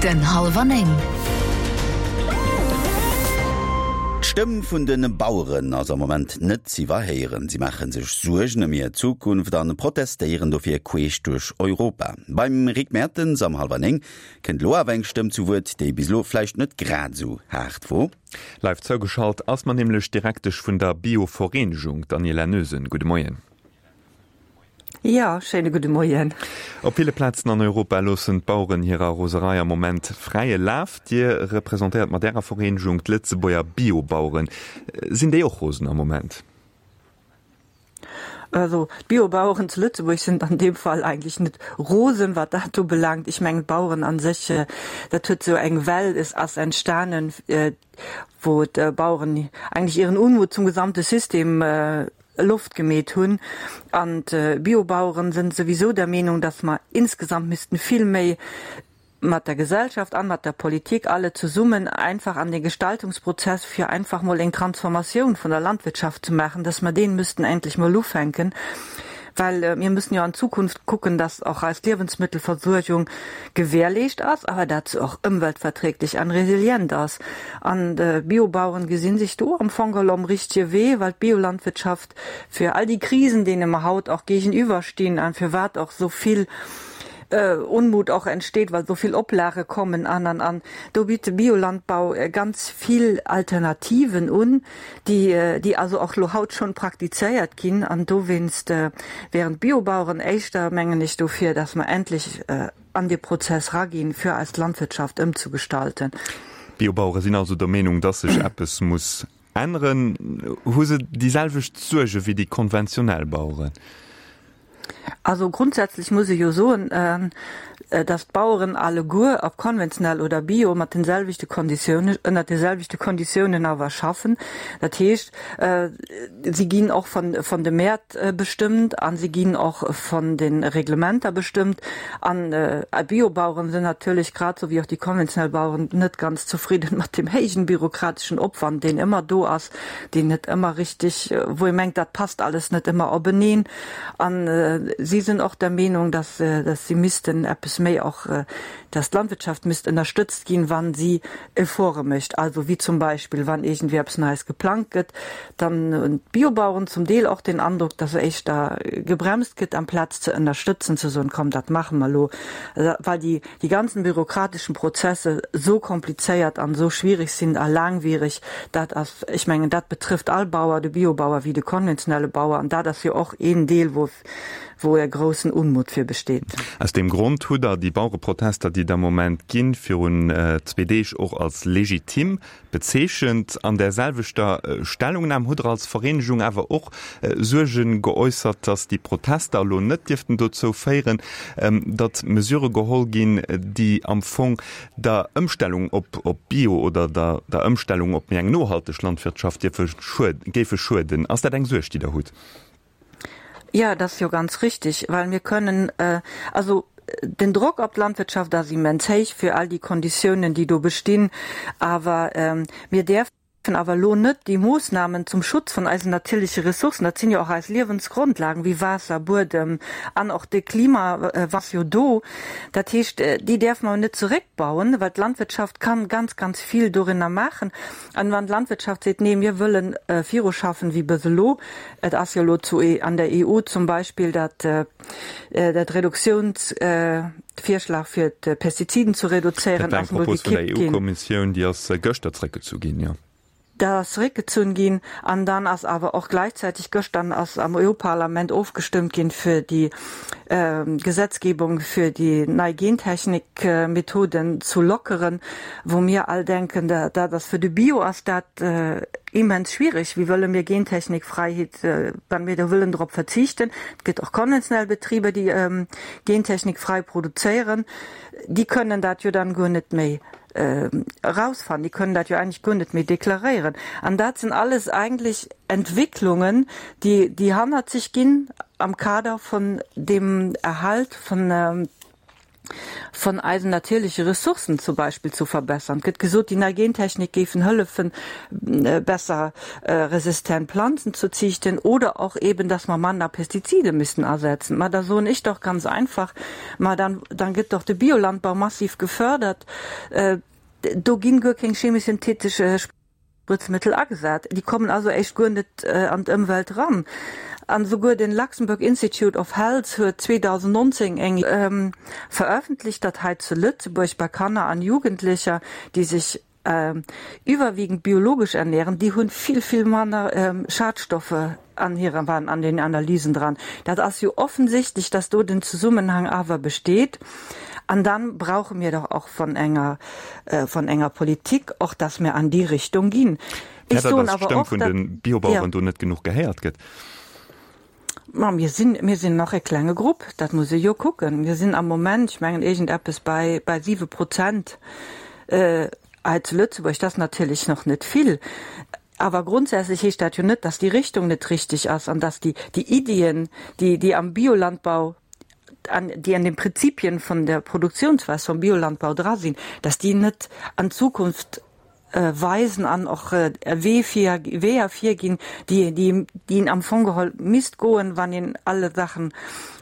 Den Hallwer 9. D'Stëmm vun de Baueren ass am Moment net z'iwwerhéieren. Si maache sech Suergen ëm hir Zukunft an protestéieren dofir queesch duerch Europa. Beim Rick Mertens am Hallwer 9 kënnt elo awer eng Stëmm zu Wuert, déi bis elo vläicht net grad esou haart wor. Live zougeschalt ass mer nämlech d'Direktesch vun der Bio-Vereenegung, d'Daniela Noesen. Gudde Moien. Jo, schéine gudde Moien. Op ville Plazen an Europa loossen d'Baueren hirer Roserei am Moment fräie Laf. Dir representéiert mat Ärer Vereenegung d'Lëtzebuerger Biobaueren. Sinn déi och rosen am Moment? Also d'Biobaueren zu Lëtzebuerg sinn an deem Fall eigentlech net rosen, wat dat ubelaangt. Ech mengen d'Baueren a sech, dat huet esou eng Well ass entstanen, wou d'Baueren eigentlech ihren Unmut zum gesamte System Loft gemeet hunn. An d'Biobaueren sinn souwisou der Meenung, dass mer insgesamt missten vill méi mat der Gesellschaft an mat der Politik alle zesummen einfach an dee Gestaltungsprozess, fir einfach mol eng Transformatioun vun der Landwirtschaft ze maachen, dass mer deen müssten endlech mol ufänken, well mir müssen jo an Zukunft kucken, dass och eis Liewensmittelversuergung gewährleescht ass, awer dat se och ëmweltverträglich an resilient ass. An d'Biobaueren gesinn sech do am Fong geholl om richtige Wee, well d'Biolandwirtschaft fir all déi Krisen, deene mer haut och géigeniwwer stinn an firwat och esou vill Unmut och entsteet, well esou vill Oplage kommen an an an, do bitt de Biolandbau ganz vill Alternativen un, déi déi also och lo haut schonn praktizéiert ginn. An dowéinst wären d'Biobaueren éischter, mengen ech, dofir, dass mer endlech an dee Prozess raginn, fir eis Landwirtschaft ëmzugestalten. D'Biobauere sinn also der Meenung, dass sech eppes muss änneren. Hu se déi selwecht Suerge wéi déi konventionell Baueren? Also grundsätzlech muss ee jo soen, dass d'Baueren alleguer, ob konventionell oder bio, mat den selwechte Konditiounen, ënnert de selwechte Konditiounen awer schaffen. Dat heescht, si ginn och von de Mäert bestëmmt a si ginn och von de Reglementer bestëmmt. An d'Biobaueren sinn natierlech, grad esou wéi och déi konventionell Baueren, net ganz zefridden mat deem héijen bürokrateschen Opwand, deen ëmmer do ass, deen net ëmmer richtig, wou ee mengt, dat passt alles net ëmmer openeen. A si sinn och der Meenung, dass, dass si missten eppes méi och, dass d'Landwirtschaft misst ënnerstëtzt ginn, wa si Efforte mécht. Also wéi zum Beispill, wann iergendwéi eppes Neies geplangt gëtt, dann hunn d'Biobaueren zum Deel och den Androck, dass éischter gebremst gëtt, amplaz ze ënnerstëtzen, ze soen, komm, dat maache mer elo, well déi, déi ganzen bürokratischen Prozesse esou komplizéiert an esou schwierig sinn a laangwierig, dat ass, ech mengen, dat betrëfft all Bauer, de Biobauer wéi de konventionelle Bauer, an dat ass jo och een Deel, wou, wou e groussen Unmut fir besteet. Aus deem Grond hutt Der déi Bauereprotester, déi et am Moment ginn, virun zwee Deeg och als legitim Bezeechent. An där selwechter Stellungnam hutt Der als Vereenegung awer och Suerge geäussert, datt déi Protester elo net dierften dozou féieren, datt Mesurë geholl ginn, déi am Fong der Ëmstellung op Bio oder der Ëmstellung op méi eng nohalteg Landwirtschaft dierfe géife schueden. Ass dat eng Suerg, déi Der hutt? Ja, dat ass jo ganz richtig, well mir kënnen, also den Drock op d'Landwirtschaft ass immens héich fir all déi Konditiounen, déi do bestinn, awer mir däerfen awer elo net déi Moosnamen zum Schutz vun eisen natierleche Ressourcen, dat sinn jo och eis Liewensgrondlagen wéi Waasser, Buedem an och de Klima ass jo do, dat heescht, déi däerfe mer net zeréckbauen, well d'Landwirtschaft kann ganz, ganz vill dorinner maachen. An wann d'Landwirtschaft seet, nee, mir wëllen viruschaffen wéi bis elo, et ass jo elo zu an der EU zum Beispill dat dat Reduktiounsvirschlag fir d'Pestiziden zu reduzéieren, Dat war eng ass emol Propos vun der gekippt ginn. EU-Kommissioun, déi ass gëschter zréckgezu ginn, jo. Dat ass zeréckgezunn ginn. An dann ass awer och gläichzäiteg gëschter ass am EU-Parlament ofgestëmmt ginn, fir déi Gesetzgebung fir déi nei Gentechnikmethoden zu lockeren, wou mir all denken, dat ass fir de Bio ass dat immens schwierig. Wéi wëlle mir Gentechnikfreiheet, wann mir do wëllen drop verzichten? Et gëtt och konventionell Betriber, déi gentechnikfrei produzéieren, déi kënnen dat jo dann guer net méi erausfannen, déi kënnen dat jo eigentlech guer net méi deklaréieren. An dat sinn alles eigentlech Entwicklungen, déi, déi hannert sech ginn am Kader vun deem Erhalt vun, von eisen natierleche Ressourcen zum Beispill zu verbessern. Et gëtt gesot, déi nei Gentechnik géifen hëllefen, besser resistent Planzen zu ziichten oder och eben, dass mer manner Pestizide müssen asetzen. Ma da soen ech doch ganz einfach, ma dann, dann gëtt doch de Biolandbau massiv gefördert, do ginn guer keng chemisch-synthetesch Spritzmittel agesat. Déi kommen also éischt guer net an d'Ëmwelt ran. An esouguer den Luxembourg Institute of Health huet 2019 eng verëffentlicht, datt hei zu Lëtzebuerg bei Kanner an Jugendlecher, déi sech iwwerwiegend biologesch ernähren, déi hunn vill, vill manner Schadstoffe an hirer, waren an den Analysen dran. Dat ass jo offensichtlech, dass do den Zesummenhang awer besteet. An dann brauche mir doch och von enger, von enger Politik och, dass mir an déi Richtung ginn. Ech soen awer och, dass d'Stëmm vun de Biobaueren do net genuch gehéiert gëtt. Ma mir sinn, mir sinn nach e klenge Grupp, dat muss ee jo kucken. Mir sinn am Moment, ech mengen iergendeppes bei, bei 7 Prozent hei zu Lëtzebuerg. Dat ass natierlech nach net vill. Awer grondsätzlech heescht dat jo net, dass déi Richtung net richtig ass an dass déi, déi Iddien, déi, déi am Biolandbau, an déi an den Prinzipien vun der Produktionsweis vum Biolandbau dra sinn, dass déi net an Zukunft weisen an och e Wee vir, Weeër virginn, déi, déi, déi een am Fong geholl misst goen, wann een alle Saachen,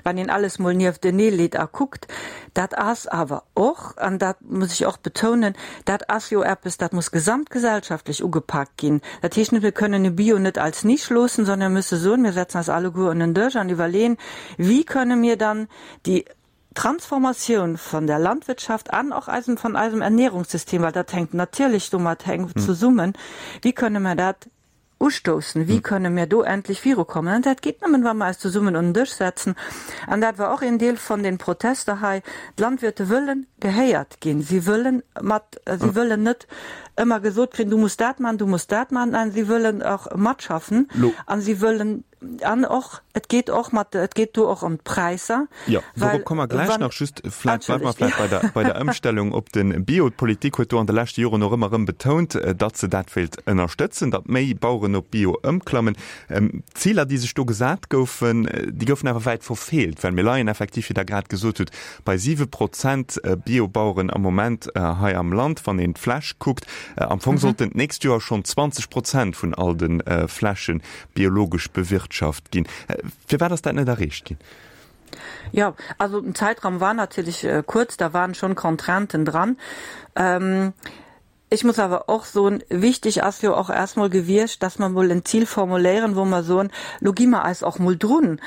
wann een alles mol nieftenee leet a kuckt. Dat ass awer och, an dat muss ech och betounen, dat ass jo eppes, dat muss gesamtgesellschaftlech ugepaakt ginn. Dat heescht net, mir kënnen de Bio net als Nisch loossen, sondern mir müsse soen, mir setzen eis alleguer un en Dësch an iwwerleeën, Wie kënne mir dann déi Transformatioun von der Landwirtschaft an och eisem, von eisem Ernährungssystem, well dat hänkt natierlech domat enk zesummen, wéi kënne mer dat ustoussen, wéi kënne mir do endlech virukommen? An dat geet nëmmen, wa mer eis zesummen un den Dësch setzen. An dat war och een Deel von den Protester hei. D'Landwirte wëllen gehéiert ginn. Si wëllen mat, si wëllen net ëmmer gesot kréien, du muss dat maachen, du muss dat maachen. Nein, si wëllen och matschaffen a si wëllen An och, et geet och mat, et geet do och ëm d'Präisser. Jo, dorop komme mer gläich nach. Just vläicht bleiwe mer vläicht bei der, bei der Ëmstellung op de Bio. D'Politik huet do an de leschte Joren och ëmmer erëm betount, datt se dat wéilt ënnerstëtzen, datt méi Baueren op Bio ëmklammen. D'Ziler, déi sech do gesat goufen, déi goufen awer wäit verfeelt, well mir leien effektiv, wéi Der grad gesot hutt, bei 7 Prozent Biobaueren am Moment hei am Land, wann een d'Fläch kuckt. Am Fong sollten d'nächst Joer schonn 20 Prozent vun all de Flächen biologesch bewirtschaft ginn. Firwat ass dat net erreecht ginn? Jo, also den Zäitraum war natierlech kuerz, da waren schonn Contrainten dran. Ech muss awer och soen, wichtig ass jo och erst mol gewiescht, dass mer mol en Zil formuléieren, wou mer soen, lo gi mer eis och mol drun,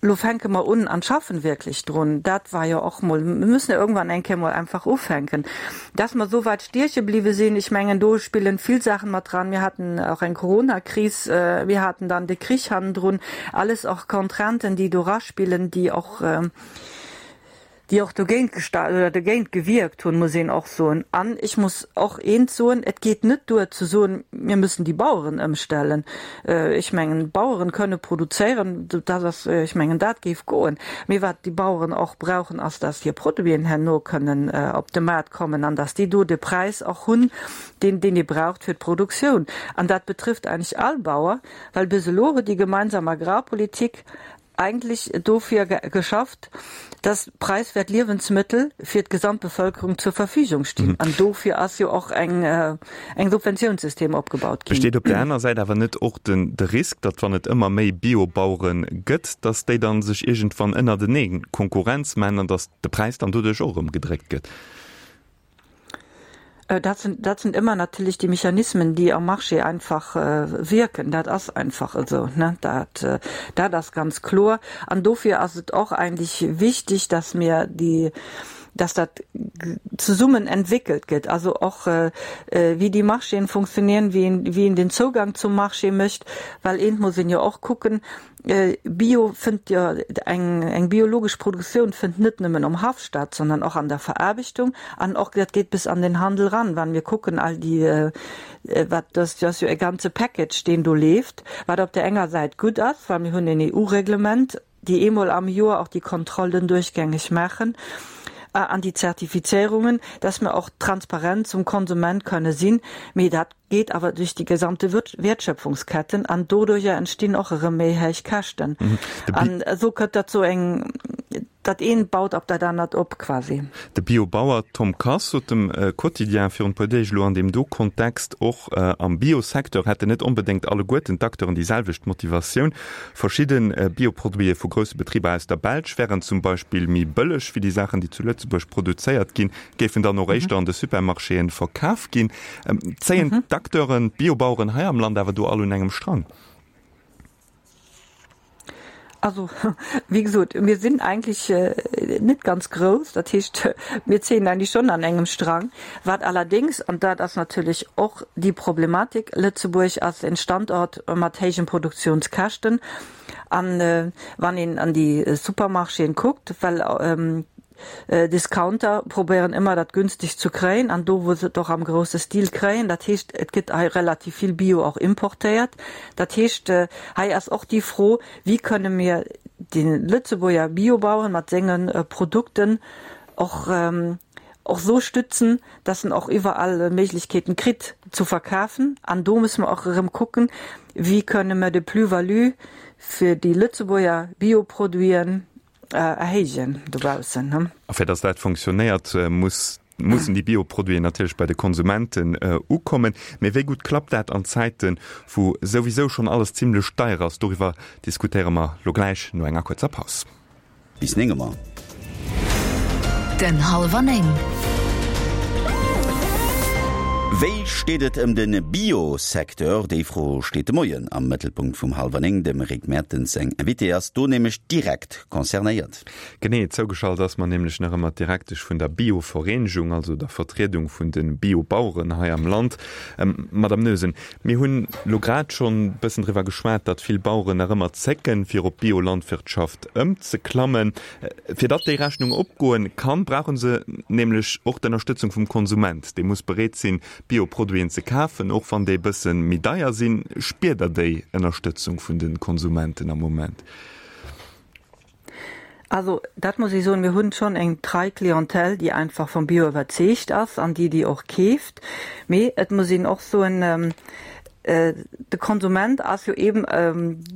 Lo fänke mer un an schaffen wierklech drun. Dat war jo och mol, mir müssen jo irgendwann eng Kéier mol einfach ufänken. Dass mer esou weit stieche bliwwe sinn, ech mengen, do spillen vill Saachen mat dran. Mir haten och eng Coronakris, mir haten dann de Krich hannendrun, alles och Contrainten, déi do raspillen, déi och, déi och dogéint gesta oder dogéint gewierkt hunn, muss een och soen. An ech muss och eent soen, Et geet net duer ze soen, mir müssen déi Baueren ëmstellen. Ech mengen, d'Baueren kënne produzéieren, dat ass, ech mengen, dat géif goen. Mee wat déi Baueren och brauchen, ass, dass hir Produiten herno kënnen op de Maart kommen an dass déi do de Präis och hunn, deen, deen ee braucht fir d'Produktioun. An dat betrifft eigentlech all Bauer, well bis elo huet déi gemeinsam Agrarpolitik eigentlech dofir geschafft, dass preiswert Liewensmëttel fir d'Gesamtbevölkerung zur Verfügung stinn. An dofir ass jo och eng eng Subventionssystem opgebaut ginn. Besteet op där aner Säit awer net och den de Risk, datt wann et ëmmer méi Biobauere gëtt, datt déi dann sech iergendwann ënnertenee Konkurrenz man an datt de Präis dann doduerch och erëm gedréckt gëtt? Dat sind, dat sind immer natürlich die Mechanismen, die am Marché einfach wirken. Dat ass einfach esou, ne? Dat, dat ass ganz kloer. An dofir ass et och eigentlich wichtig, dass mir déi, dass dat zesummen entwickelt gëtt, also och wéi déi Marchéen funktionieren, wéi een, wéi een den Zougang zum Marché mécht, well eent muss een jo och kucken, Bio fënnt jo, eng eng biologesch Produktioun fënnt net nëmmen um Haff statt, sondern och an der Veraarbechtung an och dat geet bis an den Handel ran. Wann mir kucken all déi wat dat ass jo e ganze Package deen do leeft, wat op der enger Säit gutt ass, well mir hunn en EU-Reglement, déi eemol am Joer och déi Kontrollen duerchgängeg maachen an déi Zertifizierungen, dass mir och transparent zum Konsument kënne sinn. Mee dat geet awer duerch déi gesamte Wertschöpfungsketten an doduercher entstinn och erëm méi héich Käschten. An esou kënnt dat zu eng. Dat eent baut op dat anert op quasi. De Biobauer Tom Kass sot dem Quotidien virun e puer Deeg elo an deem do Kontext, och am Biosecteur hätten net onbedéngt alleguerten d'Acteuren déi selwecht Motivatioun. Verschidde Bioproduite vu grousse Betriber aus der Belsch wären zum Beispill méi bëlleg wéi déi Saachen, déi zu Lëtzebuerg produzéiert ginn, géifen dann och éischter an de Supermarchéen verkaf ginn. Zéien d'Acteuren, d'Biobaueren hei am Land awer do all un engem Strang? Also, wéi gesot, mir sinn eigentlech net ganz grouss. Dat heescht, mir zéien eigentlech schonn an engem Strang. Wat allerdéngs, an dat ass natierlech och déi Problematik, Lëtzebuerg ass en Standort mat héijen Produktionskäschten. An wann een an déi Supermarchéen kuckt, well Discounter probéieren ëmmer dat günstig zu kréien an do wou se et och am grousse Stil kréien. Dat heescht, et gëtt hei relativ vill Bio och importéiert. Dat heescht, hei ass och déi Fro, wéi kënne mir de Lëtzebuerger Biobaueren mat senge Produkten och och esou stützen, dass en och iwwerall Méiglechkeeten kritt zu verkafen. An do musse mer och erëm kucken, wéi kënne mer de Plus-value fir déi Lëtzebuerger Bioproduiten erhéijen dobaussen. A fir dass dat fonctionnéiert, muss, mussen déi Bioproduiten natierlech bei de Konsumenten ukommen. Mee wéi gutt klappt dat an Zäiten, wou souwisou schonn alles zimmlech deier ass? Doriwwer diskutéiere mer lo gläich no enger kuerzer Paus. Bis 9 Auer. Den hallwer 9. Wéi steet et ëm de Bio-Secteur? Déi Fro steet de Moien am Mëttelpunkt vum Hallwer 9. Dem Rick Mertens seng Invitée ass do nämlech direkt concernéiert. Genee, zougeschalt ass mer nämlech nach ëmmer d'Direktesch vun der Bio-Vereenegung, also der Vertriedung vun de Bio-Baueren hei am Land. Madame Noesen, mir hunn elo grad schonn e bëssen driwwer geschwat, datt vill Baueren nach ëmmer zécken, fir op Biolandwirtschaft ëmzeklammen. Fir datt déi Rechnung opgoen kann, brauche se nämlech och d'Ënnerstëtzung vum Konsument. Dee muss bereet sinn, Bioproduiten ze kafen, och wann déi e bësse méi deier sinn. Spiert Der déi Ënnerstëtzung vun de Konsumenten am Moment? Also dat muss ech soen, mir hunn schonn eng trei Clientèle, déi einfach vum Bio iwwerzeegt ass an déi déi och keeft. Mee et muss een och soen, De Konsument ass jo eben,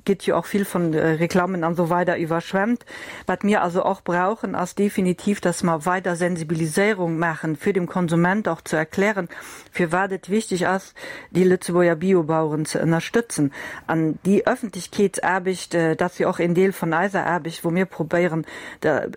gëtt jo och vill von Reklammen an esou weider iwwerschwemmt. Wat mir also och brauchen, ass definitiv, dass mer weider Sensibiliséierung maachen, fir dem Konsument och ze erklären, firwat et wichtig ass, déi Lëtzebuerger Biobaueren ze ënnerstëtzen. An déi Öffentlichkeetsaarbecht, dat ass jo och een Deel von eiser Aarbecht, wou mir probéieren,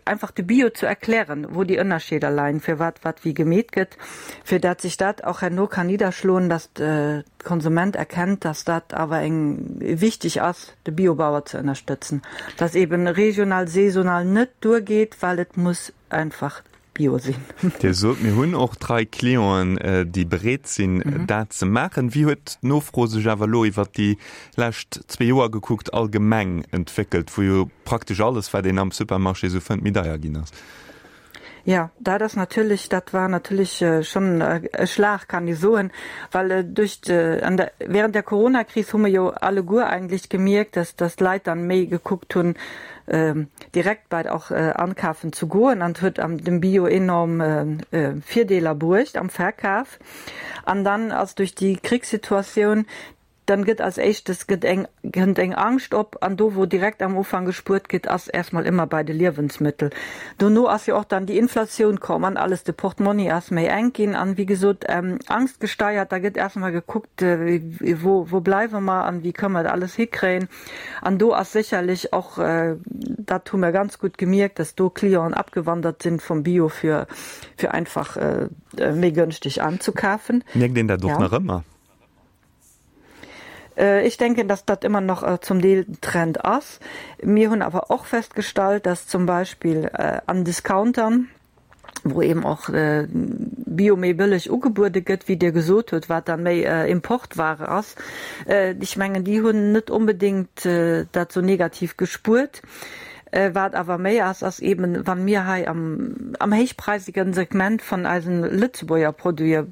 einfach de Bio ze erklären, wou déi Ënnerscheeder leien, firwat wat wéi gemeet gëtt. fir dat sich dat och herno kann nidderschloen, dass de Konsument erkennt, dass dat awer eng wichtig ass, de Biobauer ze ënnerstëtzen, dass eben regional, saisonal net duergeet, well et muss einfach bio sinn. Dir sot, mir hunn och trei Clienten, déi bereet sinn, dat ze maachen. Wéi huet d'Nofro sech awer elo iwwert déi lescht zwee Joer gekuckt allgemeng entwéckelt, wou jo praktesch alles, wat een am Supermarché esou fënnt, méi deier ginn ass? Jo, dat ass natierlech, dat war natierlech schonn e Schlag, kann ee soen, well duerch de, an der, während der Coronakris hu mer jo alleguer eigentlech gemierkt, dass, dass d'Leit dann méi gekuckt hunn, direkt bei och ankafen zu goen an huet am dem Bio enorm Virdeeler bruecht am Verkaf. An dann ass duerch déi Krichssituatioun Dann gëtt als éischtes gëtt eng kënnt eng Angscht op an do wou direkt am Ufank gespuert gëtt ass erstmol ëmmer bei de Liewensmëttel. Dono ass jo och dann déi Inflatioun komm an alles, de Portmonni ass méi enk ginn an wéi gesot Angst gesteiert, da gëtt erstmol gekuckt wou wou bleiwe mer an wéi kënne mer dat alles hikréien an do ass sécherlech och, dat hu mer ganz gutt gemierkt, dass do Clienten abgewandert sinn vum Bio fir fir einfach méi gënschteg anzukafen. Mierkt een dat och nach ëmmer? Ech denken, dass dat ëmmer nach zum Deel den Trend ass. Mir hunn awer och festgestallt, dass zum Beispill an Discountern, wou eben och Bio méi bëlleg ugebuede gëtt, wéi Dir gesot hutt, wat da méi Importware ass, ech mengen, déi hunn net onbedéngt dat esou negativ gespuert. Wat awer méi ass, ass eben, wa mir hei am, am héichpreisigen Segment vun eisen Lëtzebuerger Produite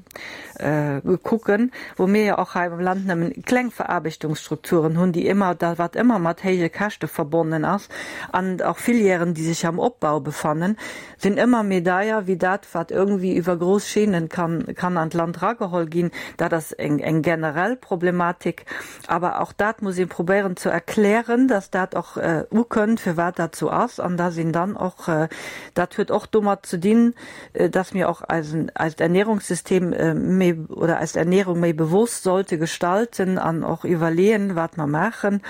kucken, wou mir jo och hei am Land nëmmen kleng Veraarbechtungsstrukturen hunn, déi ëmmer, da wat ëmmer mat héije Käschte verbonnen ass, an och Filièren, déi sech am Opbau befannen, sinn ëmmer méi deier wéi dat, wat irgendwie iwwer grouss Chaînen kann, kann an d'Land erageholl ginn. Dat ass eng, eng generell Problematik. Awer och dat muss ee probéieren ze erklären, dass dat och ukënnt, firwat dat. dat sou ass an dass een dann och, dat huet och domat ze dinn, dass mir och eisen, eist Ernährungssystem méi oder eis Ernährung méi bewosst sollte gestalten an och iwwerleeën, wat mer maachen.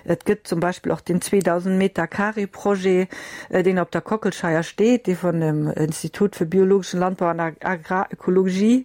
Et gëtt zum Beispill och den 2.000 Meter Carré Projet, deen op der Kockelscheier steet, dee vun dem Institut für biologischen Landbau an Agrarökologie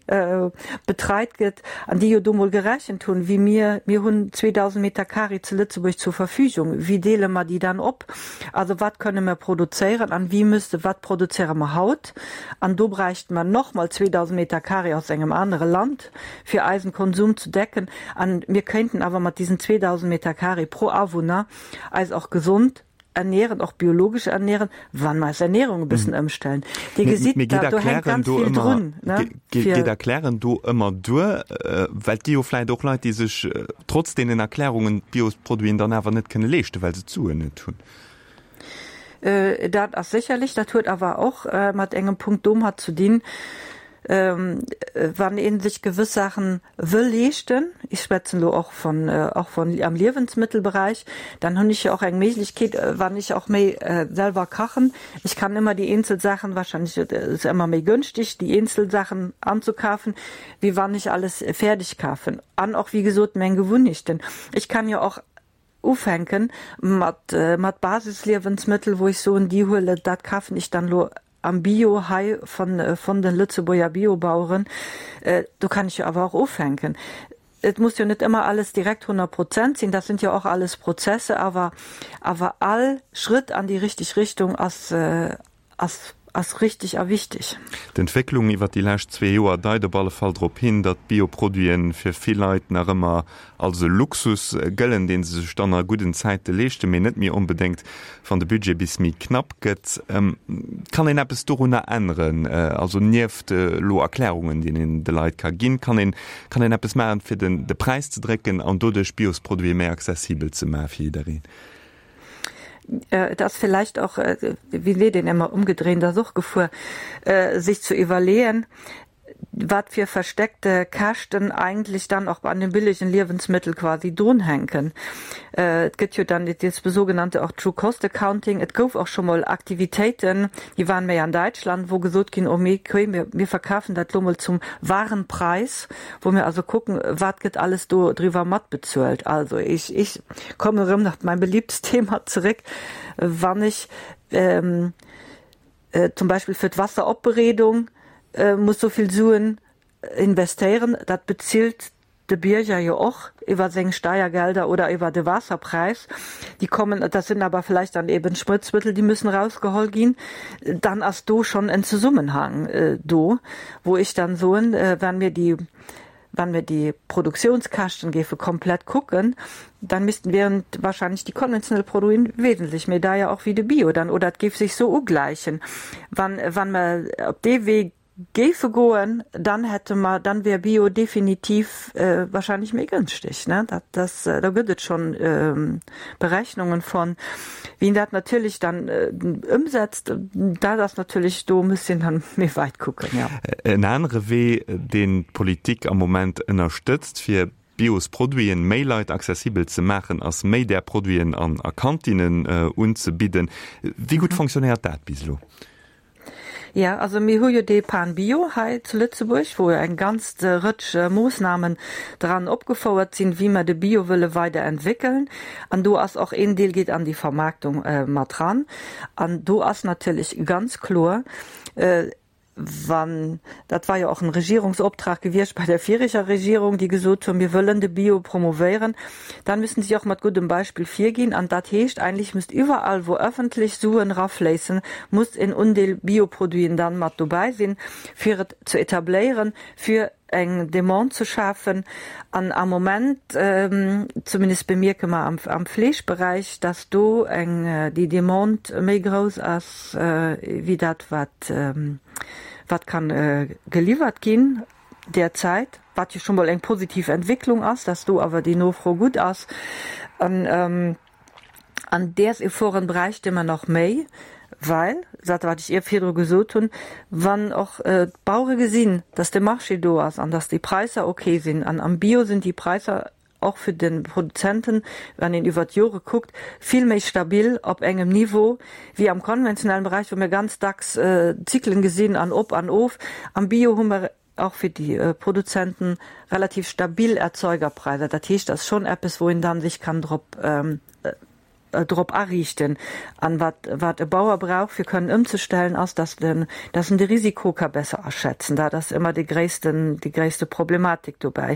betreit gëtt an déi jo do mol gerechent hunn, wéi mir, mir hunn 2.000 Meter Carré zu Lëtzebuerg zur Verfügung, wéi deele mer déi dann op? Also wat kënne mer produzéieren an wéi müsste, wat produzéiere mer haut? An do bräichte mer nochmol 2.000 Meter Carré aus engem anere Land, fir eisen Konsum ze decken. An mir kéinten awer mat diesen 2.000 Meter carré pro Awunner eis och gesond ernähren, och biologesch ernähren, wann mer eis Ernährung e bëssen ëmstellen. Dir gesitt, da do hänkt ganz vill drun. Geet Erklären do ëmmer duer? Well et gi jo vläicht och Leit, déi sech trotz deenen Erklärungen d'Biosproduiten dann awer net kënne leeschten, well se d'Suen net hunn. Dat ass sécherlech, dat huet awer och mat engem Punkt domat ze dinn, wann ee sech gewëss Saachen wëll leeschten, ech schwätzen elo och von, och von am Liewensmëttelbereich, dann hunn ech jo och eng Méiglechkeet, wann ech och méi selwer kachen, ech kann ëmmer déi eenzel Saachen, wahrscheinlech ass ëmmer méi gönschteg, déi eenzel Saachen anzukafen, wéi wann ech alles fäerdeg kafen. An och, wéi gesot, meng Gewunnechten. Ech kann jo och Ufänken mat mat Basisliewensmëttel, wou ech soen, déi huele, dat kafen ech dann elo am Bio hei von von den Lëtzebuerger Biobaueren. Do kann ech jo awer och ufänken. Et muss jo net ëmmer alles direkt 100 Prozent sinn, dat sind jo och alles Prozesse, awer awer all Schrëtt an déi richteg Richtung ass ass ass richtig a wichteg. D'Entwécklung iwwer déi lescht zwee Joer deit op alle Fall drop hin, datt Bioproduiten fir vill Leit nach ëmmer als e Luxus gëllen, dee se sech dann a gudden Zäite leeschten, mee net méi onbedéngt, wann de Budget bis méi knapp gëtt. Kann een eppes dorunner änneren? Also nieft elo Erklärungen, déi een de Leit ka ginn, kann een kann een eppes maachen, fir den de Präis ze drécken an doduerch Biosproduite méi accessibel ze maache fir jiddereen? Et ass vielleicht och, wéi seet een ëmmer, umgedreht ass och gefuer, sich zu iwwerleeën, wat fir versteckte Käschten eigentlich dann och an den billigen Liewensmittel quasi drunhänken. Et gëtt jo dann das sogenannte och True Cost Accounting. Et gouf och scho mol Aktivitéiten, déi waren méi an Däitschland, wou gesot ginn, oh mee okay, mir, mir verkafen dat lo mol zum wahren Preis, wou mir also kucken, wat gëtt alles do driwwer matbezuelt. Also ich, ich komme erëm nach mein beliebtes Thema zeréck, wann ech ähm, äh, zum Beispill fir d'Wasseropbereedung äh, muss sou vill Suen investéieren, dat bezilt de Bierger jo och iwwer seng Steiergelder oder iwwer de Waasserpräis. Déi kommen, dat sinn awer vielleicht dann eben Sprëtzmëttel, déi müssen rausgeholl ginn. Dann ass do schonn en Zesummenhang äh, do, wou ech dann soen, äh, wann mir déi Wann mir déi Produktiounskäschten géife komplett kucken, dann missten wären wahrscheinlech déi konventionell Produiten wesentlech méi deier och wéi de Bio dann, oder et géif sech sou ugläichen. Wann wann mer op dee Wee géife goen, dann hätte mer, dann wär Bio definitiv wahrscheinlech méi gënschteg, ne. Dat das do gëtt et schonn Berechnungen von. Wien dat natierlech dann ëmsetzt, dat ass natierlech, do muss een dann méi weit kucken, jo. En anere Wee, deen d'Politik am Moment ënnerstëtzt, fir Biosproduiten méi Leit accessibel ze maachen, ass méi där Produiten an a Kantinnen unzebidden. Wéi gutt fonctionnéiert dat bis elo? Jo, also mir hu jo dee Pan Bio hei zu Lëtzebuerg, wou jo eng ganz Rëtsch Moossnamen dran opgefouert sinn, wéi mer de Bio wëlle weider entwéckeln. An do ass och een Deel geet an déi Vermaarktung mat ran. An do ass natierlech ganz kloer, wann, dat war jo och en Regierungsoptrag gewiescht bei der vireger Regierung, déi gesot hunn, mir wëllen de Bio promovéieren, Dann müssen sie auch mat guddem Beispill virginn. An dat heescht, eigentlich müsst iwwerall, wou öffentlech Suen rafléissen, muss en Undeel Bioproduiten dann mat dobäi sinn, fir et ze etabléieren, fir eng Demande ze schafen. An am Moment, zumindest bemierke mer am, am Fleeschberäich, dass do eng, déi Demande méi grouss ass wéi dat, wat, wat kann geliwwert ginn. derzäit, wat jo scho mol eng positiv Entwécklung ass, dass do awer déi Nofro gutt ass. An an däers Efforten bräichte mer nach méi, well, dat wat ech ier virdru gesot hunn, wann och d'Bauere gesinn, dass de Marché do ass an dass déi Präisser ok sinn, an am Bio sinn déi Präisser. och fir de Produzenten, wann een iwwert d'Jore kuckt, vill méi stabil op engem Niveau wéi am konventionellen Bereich, wou mir ganz dacks Zyklen gesinn an op an of. Am Bio hu mer och fir déi Produzenten relativ stabil Erzeugerpreiser. Dat heescht, dat ass schonn eppes, wou een dann sech kann drop drop ariichten. An wat, wat e Bauer brauch, fir kënnen ëmzestellen, ass, dass den, dass en de Risiko ka besser aschätzen. Dat ass ëmmer dee gréissten, déi gréisste Problematik dobäi,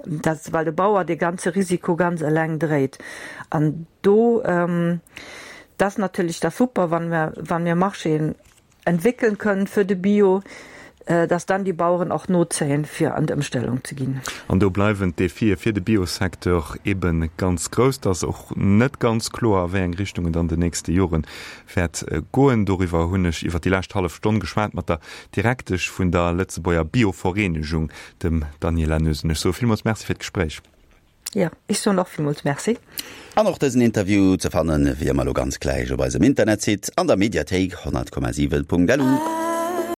dass, well de Bauer dee ganze Risiko ganz eleng dréit. An do, dat ass natierlech da super, wann mer, wann mir Marchéen entwéckeln kënnen für de Bio, dass dann die Bauern och nozéien, fir an d'Ëmstellung ze ginn. An do bleiwen d'Defie fir de Biosecteur ebe ganz grouss. Et ass och net ganz kloer, a wéi eng Richtung et an den nächste Jore wäert goen. Doriwwer hunn ech iwwer déi lescht hallef Stonn geschwat mat der Direktesch vun der Lëtzebuerger Biovereenegung, dem Daniela Noesen. Ech soe villmools Merci fir d'Gespréich. Jo, ech soen och villmools Merci. An och dësen Interview ze fannen, wéi ëmmer elo ganz gläich op eisem Internetsite an der Mediathéik 100,7.lu.